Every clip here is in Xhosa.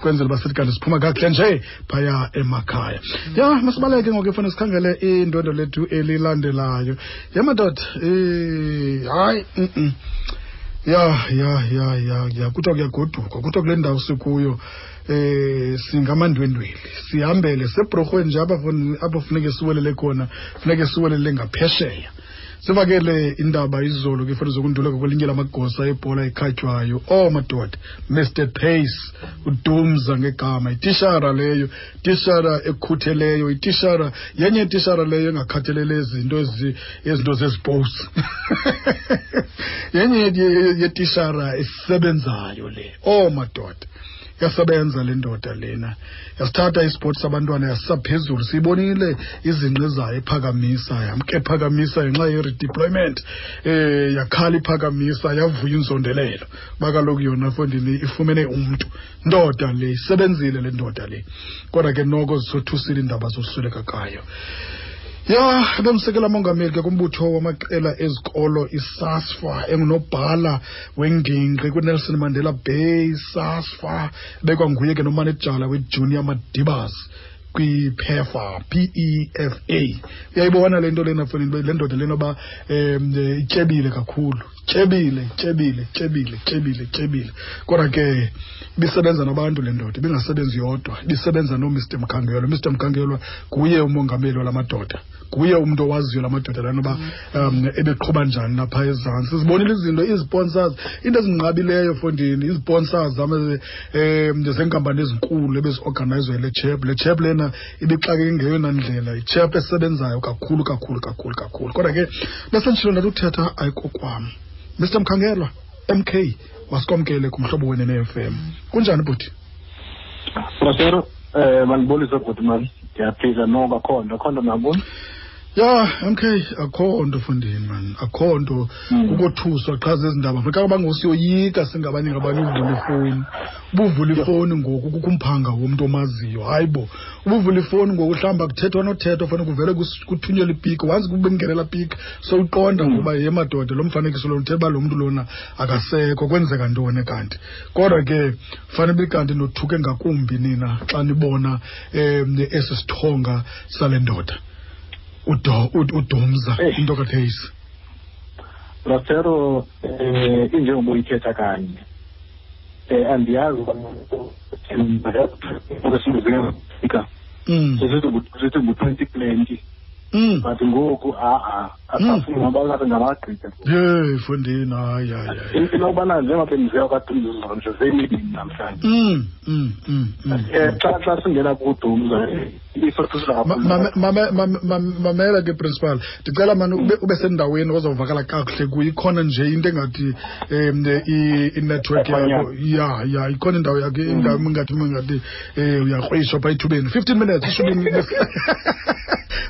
Kwenzela uba sithi kanti siphuma kakuhle nje phaya emakhaya. Ya, masibaleke ngoku efuna sikhangele indwendwe lethu elilandelayo. Ya madoda, hayi, Ya, ya, ya, ya, ya, kuthiwa kuyagodukwa, kuthiwa kule ndawo sikuyo singamandwendweli, sihambele sebrorhweni nje apho funeke siwelele khona, funeke siwelele ngaphesheya. Sivakele indaba izolo ke fanele zokunduleka kwelinye lamagosa ebhola ekhatywayo. Oh madoda, Mr Pace uDumza ngegama, itishara leyo, itishara ekhutheleyo, itishara yenye itishara leyo engakhathalele izinto ezi izinto zeziposi. Yenye yetishara esebenzayo le. Oh madoda. Yasebenza le ndoda lena, yasithatha isipoti sabantwana yasisa phezulu. Siyibonile izinqe zayo ephakamisa, yamke ephakamisa ngenxa ye-redeployment, yakhala iphakamisa, yavuya inzondelelo uba kaloku yona fondini ifumene umntu. Ndoda le isebenzile le ndoda le, kodwa ke noko zisothusile iindaba zosweleka kayo. Ya, bemsekela mongameli ke kumbutho wamaqela ezikolo iSASFA, engunobhala wengingqi kwiNelson Mandela Bay SASFA, bekwanguye ke nomanejala weJunior Madibaz kwiPEFA, PEFA. Uyayibona le nto lena foni, le ndoda lena uba ityebile kakhulu, tyebile, tyebile, tyebile, tyebile, tyebile. Kodwa ke ibisebenza nabantu le ndoda, ibingasebenzi yodwa, ibisebenza noMr Mkhangelwa. Mr Mkhangelwa nguye umongameli wala madoda, nguye umntu owaziyo la madoda lana uba ebeqhuba njani lapha ezantsi. Sizibonile izinto, izisponsors, into ezinqabileyo fondini, izisponsors zenkampani ezinkulu ebeziorganayizwa yile chep. Le chep lena ibixakeke ngeyona ndlela, ichep esebenzayo kakhulu, kakhulu, kakhulu, kakhulu. Kodwa ke besenditshilo ndathi uthetha ayikokwam. Mr Mkhangelwa, MK, masikwamkele kumhlobo wena ne-FM. Kunjani bhuti? Brasero, mandibulise bhuti mani. Ndiyaphila noko, akho nto, akho nto nabuni. Ya, MK, akho nto fondini man, akho nto. Kukothuswa qha zezi ndaba. Funeka bangosiyoyika singabanye ngabanye uvula ifowuni. Ubuvula ifowuni ngoku kukho umphanga womntu omaziyo. Hayi bo, ubuvula ifowuni ngoku mhlawumbi akuthethwa nothethwa, fanele kuvele kuthunyelwe ipiki. Once kube kungenela piki, sowuqonda ngoba ye madoda, lo mfanekiso lona uthetha uba lo mntu lona akasekho, kwenzeka ntoni kanti. Kodwa ke fanele ube kanti nothuke ngakumbi nina xa nibona esi sithonga sale ndoda. UDumza, into kaPace. Brasero, injengoba uyithetha kanye. Andiyazi sithi ngu-2020. But ngoku, ha-a, asafuni ngoba ngathi ngabagqitha. Yeyi, fondini, hayi, hayi, hayi. Inokubana njengoba bendisiya kwaDumza nje seyimibini namhlanje. Xa singena kuDumza, isothusa kakhulu. Mamela ke principal, ndicela mani ube sendaweni ozawuvakala kakuhle kuyo. Ikhona nje into engathi i-network yakho. Ya, ya, ikhona indawo yakho, indawo ingathi uyakrwishwa phaa ethubeni. 15 minutes, ishumi.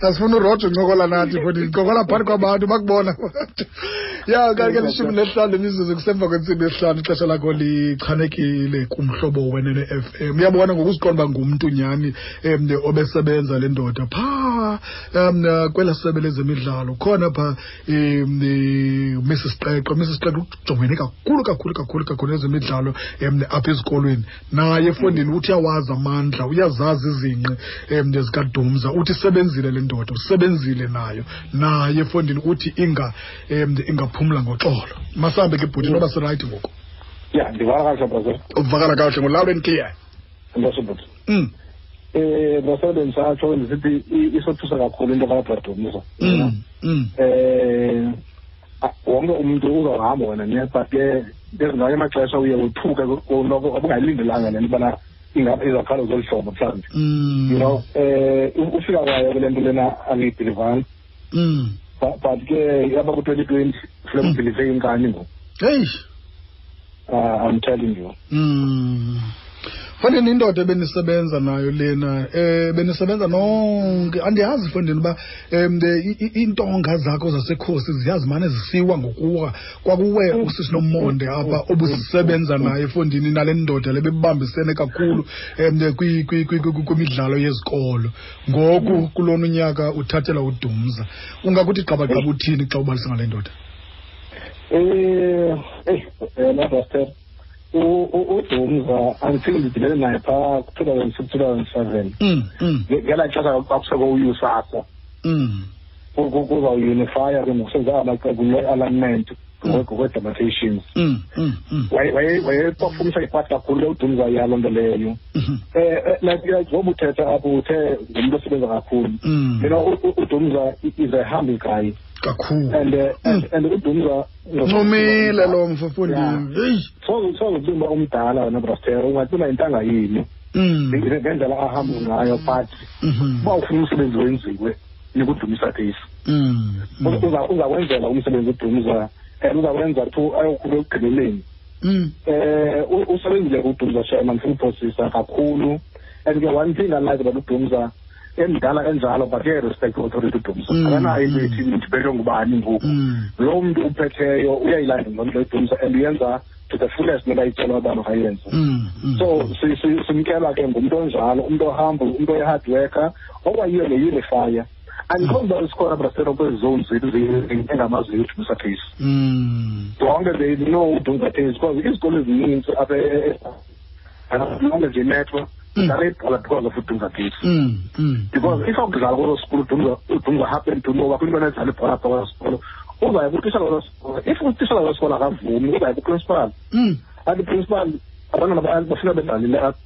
Asifuna uRoger uncokola nathi, futhi ncokola phakathi kwabantu bakubona. Ya, kanti ke 15 imizuzu kusemva kwentsimbi yesihlanu, ixesha lakho lichanekile kumhlobo wenene FM. Uyabona ngokuziqonda uba ngumntu nyhani obesebenza le ndoda phaa kwela sebe lezemidlalo. Khona phaa Mrs Qeqo. Mrs Qeqo ujongene kakhulu, kakhulu, kakhulu, kakhulu nezemidlalo apha ezikolweni. Naye efondini uthi uyawazi amandla, uyazazi izinqe zikaDumza, uthi isebenzile le ndoda, usebenzile nayo. Naye efondini uthi ingaphumla ngoxolo. Masambe ke bhuti, noba sirayithi ngoku. Ya, ndivakala kakuhle, brother. Uvakala kakuhle ngo-loud and clear. Enkosi bhuti. Brother, bendisatsho ndisithi isothusa kakhulu into kaBradumza. Wonke umntu uzawuhamba wena ne, but ke ngamanye amaxesha uye wothuke noko obungayilindelanga le nto ubana ingaba izawuqala ngolu hlobo mhlawumbi. Ufika kwayo kule nto lena angiyibhilivanga. But ke yaba ku-2020 funeka ubhilive inkani ngoku. Hey. I'm telling you. Fondini, indoda ebenisebenza nayo lena, benisebenza nonke. Andiyazi fondini uba iintonga zakho zasekhosi ziyazimane zisiwa ngokuwa. Kwakuwe usisi Nomonde apha obusebenza naye fondini, nale ndoda le bebambisene kakhulu kwimidlalo yezikolo. Ngoku kulona unyaka uthathela uDumza. Ungakuthi gqabagqaba uthini xa ubalisa ngale ndoda? Nabaster. UDumza until ndidibene naye phaa ku-2006 2007 ngelaa xesha kwakusekho uUSASA kuzawunifiya ke ngokusenza amaqembu le-alignment ngokwe-demarcations. Wayepafumisa ipati kakhulu le uDumza yaloo nto leyo. Like ngoba uthetha apho uthe ngumntu osebenza kakhulu. UDumza is a humble guy. Kakhulu. And uDumza ncumile lo mfo mfondini. Heyi. Soze uba umdala wena Brastero ungathi una intanga yini. Ngendlela ahamba ngayo but uba ufuna umsebenzi wenziwe nikuDumisa case. Uzakwenzela umsebenzi uDumza and uzakwenza to ayokhulu ekugqibeleni. Usebenzile uDumza Sherman futhi kakhulu. And ke one thing I like about uDumza emdala enjalo but uyayi-respect authority uDumza. Akanayo into ethi ndibethwe ngubani ngoku. Lo mntu uphetheyo uyayilandela loo nto uDumza and uyenza to the fullest noba icelwa uba makayenze. So simkela ke ngumntu onjalo, umntu ohamba, umntu oyi-hard worker okwayiyo ne-unifier. Andiqondi uba sikhona Brastero kwezi zone zethu engamaziyo uDumza case. Zonke they know uDumza case because izikolo ezininzi apha zonke nje metro dlala ibhola because of uDumza case. Because if akudlala kweso sikolo uDumza happen to know uba kwintwana edlala ibhola apha kweso sikolo uzaya kutishala kweso sikolo. If utishala kweso sikolo akavumi uzaya kuprincipal. Athi principal abantwana bafuna bedlalile apha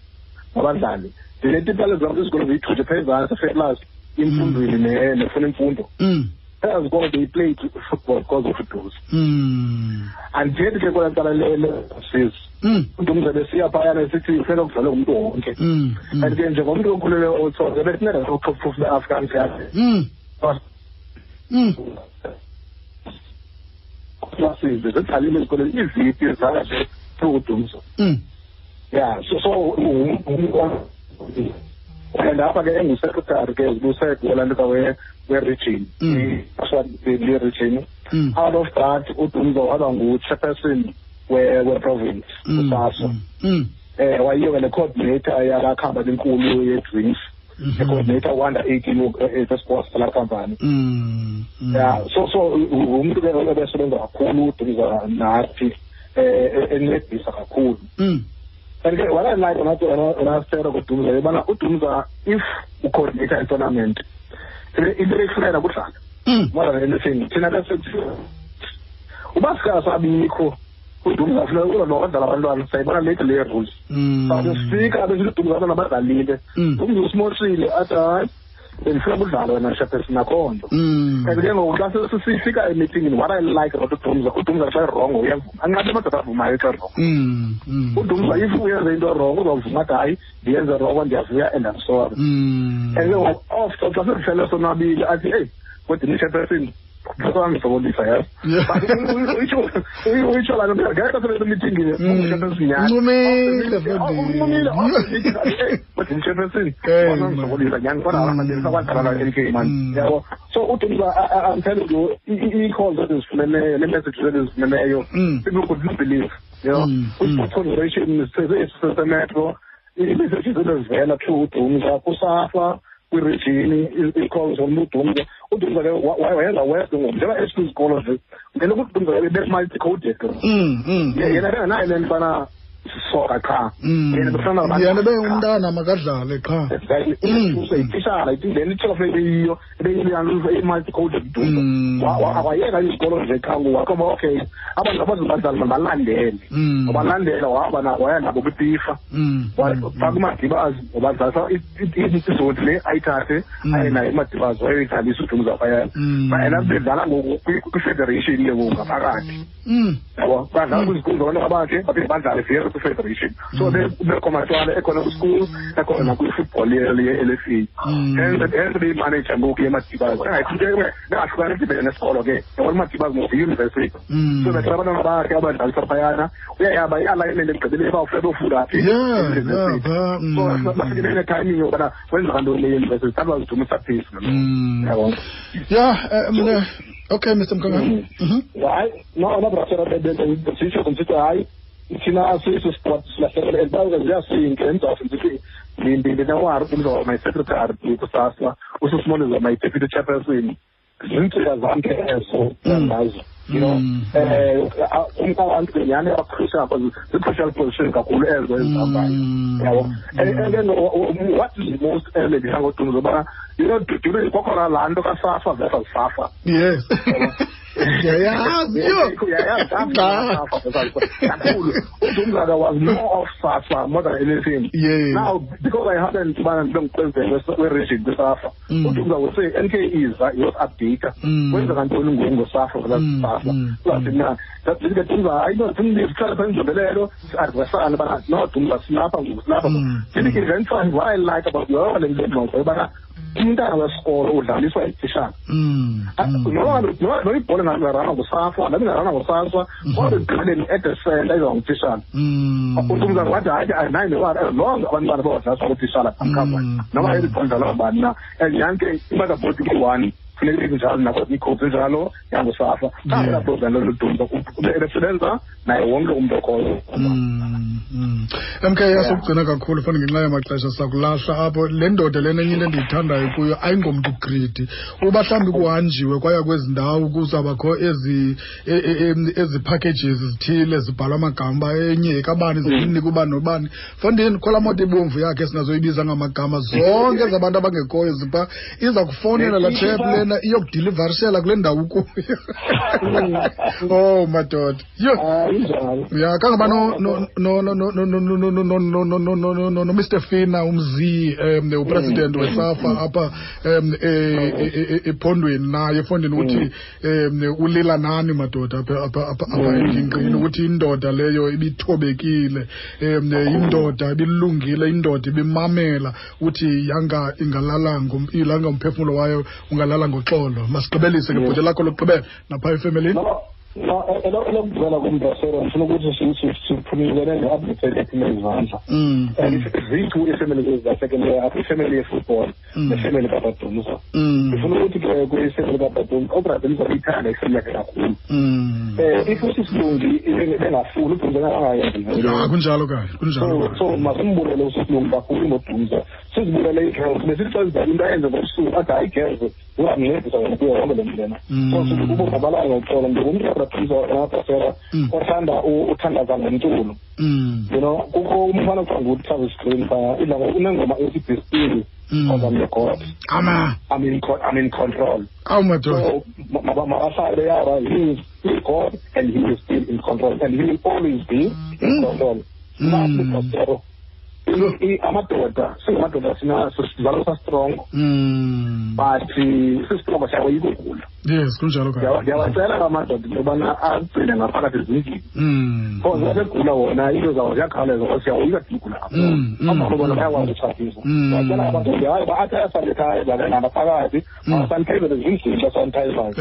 abadlali. Ndinetipala zam izikolo ziyithuthe phaa ezantsi eFetlas imfundweni nefuna imfundo. Ezikolo they played football because of uDumza. Andithethi ke kwelaa cala le-sis. uDumza besiya phayana esithi funeka kudlalwe ngumntu wonke. And ke njengomntu okhulele oTsonga besinceda top be-African yakhe. Classes zidlalile ezikolweni iiviti zidlala nje through uDumza. Yeah, so and apha ke engu-secretary ke zibusekulaa we-region. Le-region. Out of that uDumza waba ngu-chairperson we-province uSASA. Wayiyo ke ne-coordinator yalaa khampani enkulu ye-drinks. The-coordinator under 18 sports kulaa khampani. Yeah, so ngumntu ke ebesebenza kakhulu uDumza nathi encedisa kakhulu. And ke what I like onasera kuDumza yobana uDumza if ucoordinator i-tournament into eyifunela kudlala more than anything. Thina ke uba sikasabikho uDumza funeka uzodlala abantwana sayibona late le rules. But sifika besithi uDumza abantwana badlalile. Umntu usimoshile athi hayi bendifuna kudlala wena Shepherd nakho nto. And ke ngoku xa sifika emeetingini what I like about uDumza, uDumza xa wrong uyavuma. Anqabe amadoda avumayo xa wrong. uDumza if uyenze into wrong uzawuvuma athi hayi ndiyenze wrong ndiyavuya and I'm sorry. And ke ngoku after xa sesihlele sonwabile athi hey kodwa ni-chairperson ngisokolisa yazi. But uyitsho laa nto ngexesha sebesemithingini ungu-chairperson nyhani. Uncumile Uncumile kodwa ni-chairperson ngisokolisa nyhani kodwa sakwadlala la NK man. Yabo. So uDumza I'm telling you ii-calls ezizifumeneyo nee-messages ezizifumeneyo people could not believe. You know, kwi-sports federation semetro ii-messages ebezivela through uDumza kuSAFA kwirijini ii-calls from uDumza. uDumza ke wayenza west ngoku njengoba esikwizikolo nje ngelo ukuthi uDumza be-multi-coded. Yena bengenayo le nto ubana soka qha. Yena befana yena bengumntana makadlale qha. Exactly. Itishala le nto funeka iyiyo i-multi-coded uDumza. Wayeka izikolo nje qha ngoku waqonda okay abantu abazobadlala mabalandele. Wabalandela wahamba waya nabo kwiFIFA. Wafaka uMadibazi wabadlalisa izoti le ayithathe aye naye uMadibazi wayoyidlalisa uDumza phayana. Yena bedlala ngoku kwi-federation ke ngoku ngaphakathi. Yabo badlala kwizikolo zabantwana bakhe baphinde badlale vele kwi-federation. So bekomatwana ekhona kwi-school ekhona kwi-football ye-LFA. Hence beyi-manager ngoku yeMadibazi. Bengahlukani idibene nesikolo ke. Yabona uMadibazi ngoku yi-university. So bethe abantwana bakhe abadlalisa phayana uyayaba i-alignment ekugqibeleni bawufuna beyofunda phi. So bafike bene-timing yokubana kwenzeka ntoni le university. That was Dumisa Pace. Yabo. Yeah, mna okay Mr Mkangana. Hayi no Brastera besitsho ngisithi hayi thina asiso sport silahlekele and bawuke ziyasinke emzathu ndithi ndinewari umza my secretary kusasa ususimoniza my deputy chairperson zintsika zam ke ezo ngazo. You know, abantu nyhani aba-crucial, zii-crucial position kakhulu ezo ezihambayo, yabo. And then what is most elebisa ngoDumza ubana, you know, during kwakhona laa nto kaSAFA versus SAFA. Yes. Ndiyayazi yho. Uyayazi kakhulu. uDumza was more of SAFA more than anything. Now, because I happened to be ngupresident we-region kwiSAFA, uDumza would say NK iza iyos-update. Kwenzeka ntoni ngoku ngoSAFA versus SAFA? Uzathi mna ndathi Dumza hayi no sihlale phaa inzondelelo si-adresane bana no Dumza silapha ngoku silapha. Ndithi eventually what I like about yonke le ngxoxo yobana umntana wesikolo udlaliswa yitishana. No ibhola ingarana nguSAFA, nabi ingarana nguSASA, kodwa ekugqibeleni at the center iza ngutishana. uDumza wathi hayi andinayo newari as long abantwana bawadlaliswa ngutitshala amkhava noma elibhola idlalwa ngubani na, and yanke i-motherboard iyi-one funeka ibe njalo nakwezinye iikhowudi zinjalo yanguSAFA. Xa program loDumza ebesebenza naye wonke umntu okhoyo. MK, yasokugcina kakhulu fana ngenxa yamaxesha sakulahla apho. Le ndoda lena enye into endiyithandayo kuyo ayingomntu greedy. Uba mhlawumbi kuhanjiwe kwaya kwezi ndawo kuzawubakho ezi ezi packages zithile zibhalwa amagama enye kabani zinika ubani nobani. Fondini khola moto ibomvu yakhe singazoyibiza ngamagama zonke zabantu abangekhoyo zipha iza kufonela la chap lena iyokudilivarishela kule ndawo ukuyo. Oh madoda. Yho. Ya kangaba no no no no no no no no no no no no no no no Mr Fina umzi upresident weSAFA apha ephondweni naye efondini uthi ulila nani madoda apha apha apha engingqini ukuthi indoda leyo ibithobekile, indoda ibilungile, indoda ibimamela, uthi yanga ingalala ilanga umphefumulo wayo ungalala ngoxolo. Masigqibelise ke bhuti lakho lokugqibela napha efemelini. No, elokugqibela kumbrasero ndifuna ukuthi siphumilene ne-update ephume izandla. And zithu iifemeli ezilahlekileyo apha, ifemeli yefootball nefemeli kaBradumza. Ndifuna ukuthi ke kwifemeli kaBradumza, uBradumza uyithanda ifemeli yakhe kakhulu. If uSisilungi bengafuni uDumza angayenzi. Ya kunjalo kanye, kunjalo. So masimbulele uSisilungi kakhulu ngoDumza. Sizibulele ii-girls, besithi xa zidlala into ayenze ngobusuku athi hayi girls, uzamncedisa wena kuyo yonke le nto lena. So sithi kubo mabalale ngoxolo. Ndingumntu kaBradumza wabhasela othanda uthandaza ngomculo. You know, kukho umfana okuthiwa nguTravis Green phaya, idla unengoma ethi Be Still because I'm your God. I'm in control. Awu madoda. So mabahlale yaba he is still God and he is still in control and he will always be in control. Amadoda singamadoda sizalwa sa-strong, but si-strong siyakoyika ugula. Yes, kunjalo kanye. Ndiyawacela amadoda into yobana agcine ngaphakathi ezindlini, because abegula wona into zawo ziyakhawuleza because siyawoyika ugula. Abahlobo bona bayakwazi utshatisa. Ndiyacela amadoda hayi athi ayasanithayiza ngaphakathi, asanithayizele ezindlini xa sanithayizayo,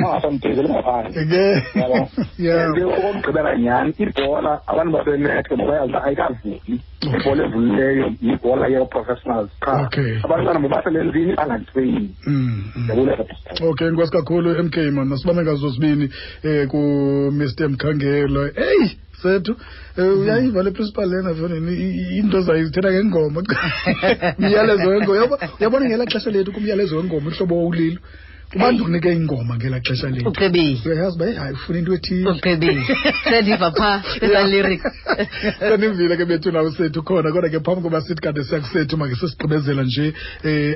angasanithayizeli ngaphandle. Yabo. And okokugqibela nyhani ibhola abantu basenethe bayazi ayikavuli. Ibhola evulileyo yibhola yee-professionals qha. Abantwana mabaselenzini bangatreyini. Okay, enkosi kakhulu MK man, masibambe ngazo zibini ku Mr Mkhangelo. Hey sethu, uyayiva le principal lena fonini into zayo zithetha ngengoma. Umyalezo wengoma. Uyabona ngelaa xesha lethu kumyalezo wengoma uhlobo owulilo. Ubantu kunike ingoma ngelaa xesha lethu. Ucebile. Uyayazi uba hayi ufuna into ethile. Ucebile. Sendiva phaa eza lyrics. Senivile ke bethu nawo sethu khona, kodwa ke phambi koba sithi kade siya kusethu make sesigqibezela nje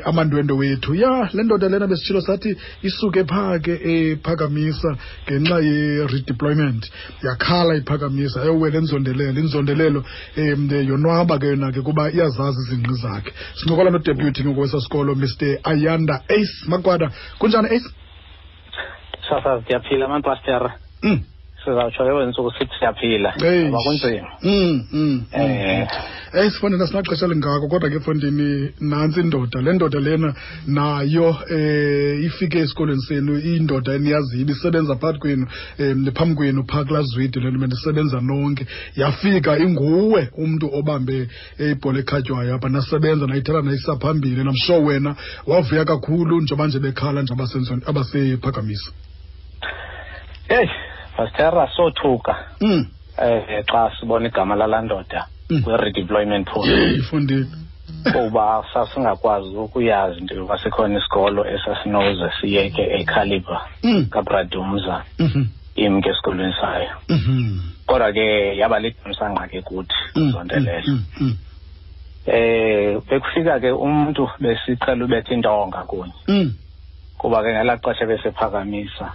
amandwendwe wethu. Ya le ndoda lena besitshilo sathi isuke phaa ke ephakamisa ngenxa ye-redeployment. Yakhala iphakamisa ayowela enzondelelo, inzondelelo yonwaba ke yona ke kuba iyazazi izingqi zakhe. Sincokola nodeputy ngoku wesasikolo Mr Ayanda Ace Makwada. Kunjani Ace? Sasa siyaphila man pastor. Sizawutsho ke wentsuku sithi siyaphila. Ngoba kunzima. Sifondini asinaxesha lingako kodwa ke fondini nantsi indoda. Le ndoda lena nayo ifike esikolweni senu, indoda eniyaziyo ibisebenza phakathi kwenu, phambi kwenu phaa kulaa zwide le nto bendisebenza nonke. Yafika inguwe umntu obambe ibhola ekhatywayo apha, nasebenza nayithatha nayisa phambili. And I'm sure wena wavuya kakhulu njengoba nje bekhala nje abasephakamisa. Hey, Pastor sothuka. Xa sibona igama lalaa ndoda kwi-redeployment pool. Ifundile. Kuba sasingakwazi ukuyazi into yoba sikhona isikolo esasinoze siyeke ecaliber kaBradumza. Imke esikolweni sayo. Kodwa ke yaba lithamsanqa ke kuthi Nzondelelo. Bekufika ke umuntu besiqhela ubetha intonga kunye. Kuba ke ngelaa xesha besephakamisa.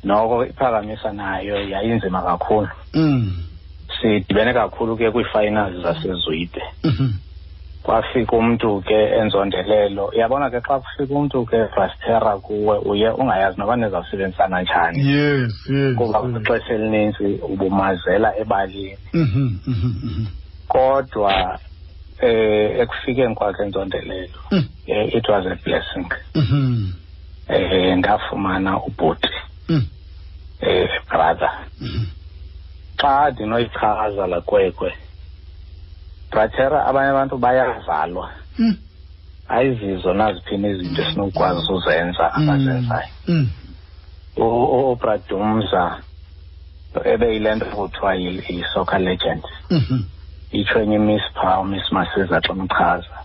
Noko iphakamisa nayo yayinzima kakhulu. Sidibene kakhulu ke kwii-finals zaseZwide. Kwafika umntu ke enzondelelo. Uyabona ke xa kufika umntu ke Brastera kuwe uye ungayazi noba nizawusebenzisana njani. Yes, yes. Kuba kwixesha elininzi ubumazela ebalini. Kodwa ekufikeni kwakhe enzondelelo, it was a blessing. Ndafumana ubhuti. Brother. Xa ndinoyichaza la kwekwe, Brastera, abanye abantu bayazalwa. Ayizizo naziphina izinto esinokwazi uzenza abazenzayo. UBradumza ebeyile nto kuthiwa yi-soccer legend. Itsho enye iMiss phaa, uMiss Masiza xa umchaza.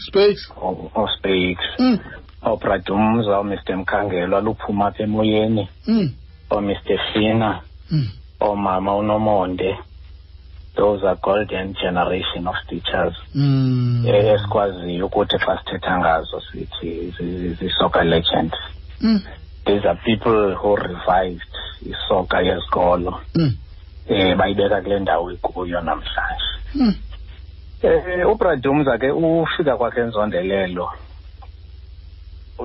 Spakes. OSpakes. OBradumza, uMr Mkhangelwa luphuma apha emoyeni. OMr Fina. Oomama uNomonde. Those are golden generation of teachers. Esikwaziyo ukuthi xa sithetha ngazo sithi zi-soccer legends. These are people who revived isoccer yesikolo. Bayibeka kule ndawo ikuyo namhlanje. UBradumza ke ufika kwakhe enzondelelo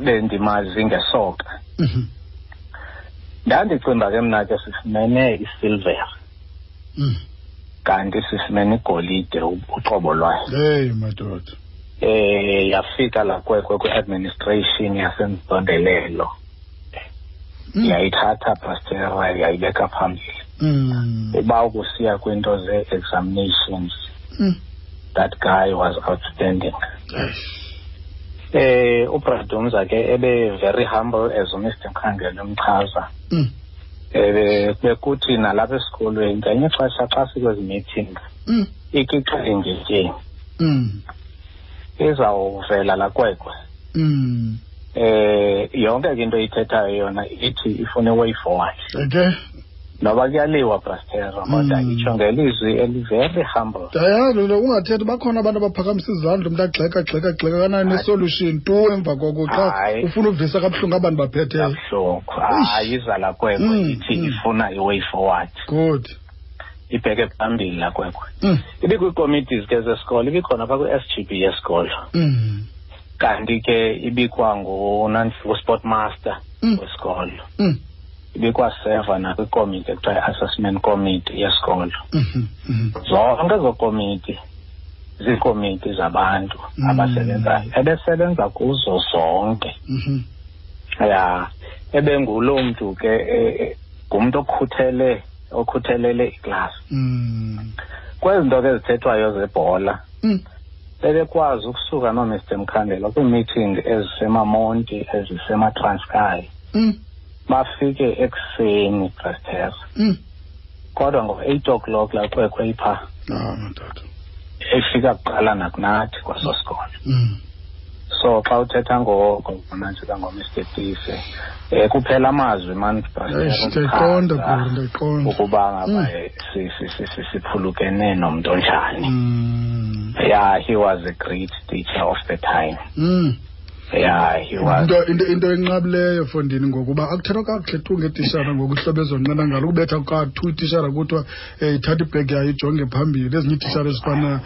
bendimazi ngesoka. Ndandicinga ke mna ke sifumene isilver. Kanti sifumene igolide uqobo lwayo. Hey madoda. Yafika la kwekwe kwi-administration yaseNzondelelo. Yayithatha Pastera yayibeka phambili. Uba ukusiya kwinto ze-examinations. That guy was outstanding. UBradumza ke ebe very humble as uMr Mkhangela umchaza. Bekuthi nalapha esikolweni ngenye ixesha xa sikwezi meetings ikixa ngetyeni. Izawuvela la kwekwe. Yonke ke into ithethayo yona ithi ifune way forward. Okay. Noba kuyaliwa Pastera kodwa itsho ngelizwi eli very humble. Yazi ungathethi bakhona abantu abaphakamisa izandla umuntu agxeka gxeka gxeka kanayo ne-solution tu emva koko xa ufuna uvisa kabuhlungu abantu baphetheyo. Kabuhlungu. Hayi izala kwekwe ithi ifuna i-way forward. Good. Ibheke phambili la kwekwe. Ibikwii-committees ke zesikolo, ibikhona phaa kwi-SGB yesikolo. Kanti ke ibikwa ngu-sport master wesikolo. Ibikwaseva nakwikomiti ekuthiwa i-assessment committee yesikolo. Zonke ezo komiti ziikomiti zabantu abasebenzayo. Ebesebenza kuzo zonke. Ya, ebenguloo mntu ke ngumntu okhuthelele iklasi. Kwezi nto ke zithethwayo zebhola, bebekwazi ukusuka noMr Mkhandela kwii-meeting ezisemaMonti, ezisemaTranskei. Bafike ekuseni Pastera. Kodwa ngo-8 o'clock la kwekwe ipha. Madoda. Efika kuqala nakunathi kwaso sikolo. So xa uthetha ngoNantsika ngoMr Tise, kuphela amazwi man Pastera. Ndiyayiqonda, ndiyayiqonda. Ukuba ngaba siphulukene nomntu onjani. Yeah, he was a great teacher of the time. Yeah, he was. Into enqabileyo fondini ngokuba akuthethwa kakuhle tu ngetishara ngokuhlobo ezonqena ngalo ukubetha kathu itishara kuthiwa ithatha ibhegi yayo ijonge phambili. Ezinye iitishara ezifana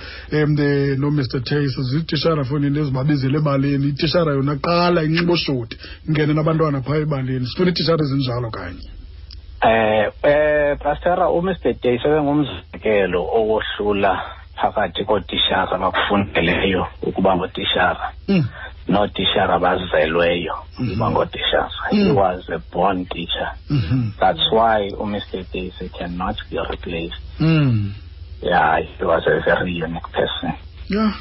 noMr Tace ziitishara fondini ezibabizele ebaleni. Itishara yona qala inxiba oshoti ingene nabantwana phaa ebaleni. Sifuna iitishara ezinjalo kanye. Pastera, uMr Tace ebengumzekelo owohlula phakathi kootishara abakufundeleyo ukuba ngootishara. Nootishara abazelweyo ukuba ngootishara. He was a born teacher. That's why uMr Tace cannot be replaced. Yeah, he was a very unique person. Yeah.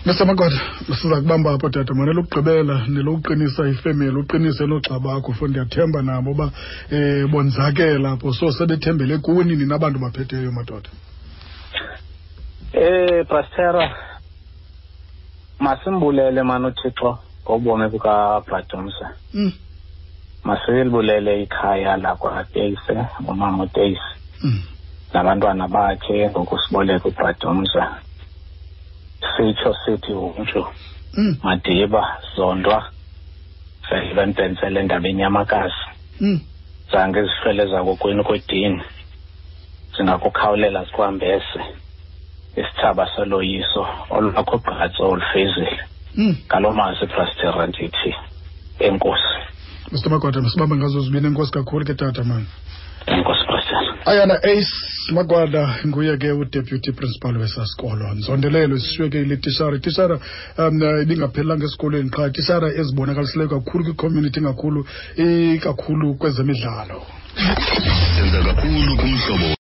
Mr. Magwada, siza kubamba apho tata, mane lokugqibela nelokuqinisa ifemeli, uqinise noogxa bakho, fo ndiyathemba nabo uba bonzakela apho, so sebethembele kuni nina abantu baphetheyo madoda. Pastera, masimbulele mani uThixo ngobomi bukaBradumza. Masilibulele ikhaya lakwaTeyise, umama uTeyise nabantwana bakhe ngokusiboleka uBradumza. Sitsho sithi umntu Madiba Zondwa vele bembhentsele endaba enyamakazi zange izihlwele zakokwenu kwedini zingakukhawulela zikwambese isithaba soloyiso olwakho gqatso olufezile. Ngaloo mazwi, Brastera, ndithi enkosi. Mr Magwada, masibambe ngazo zibini. Enkosi kakhulu ke tata mani. Enkosi, Brastera. Ayana Ace Magwada nguye ke udeputy principal wesasikolo. Nzondelelo isishiyeke ile tishara. Itishara ibingaphelelanga esikolweni qha, itishara ezibonakalisileyo kakhulu kwicommunity, ngakhulu ikakhulu kwezemidlalo. Senza kakhulu kumhlobo.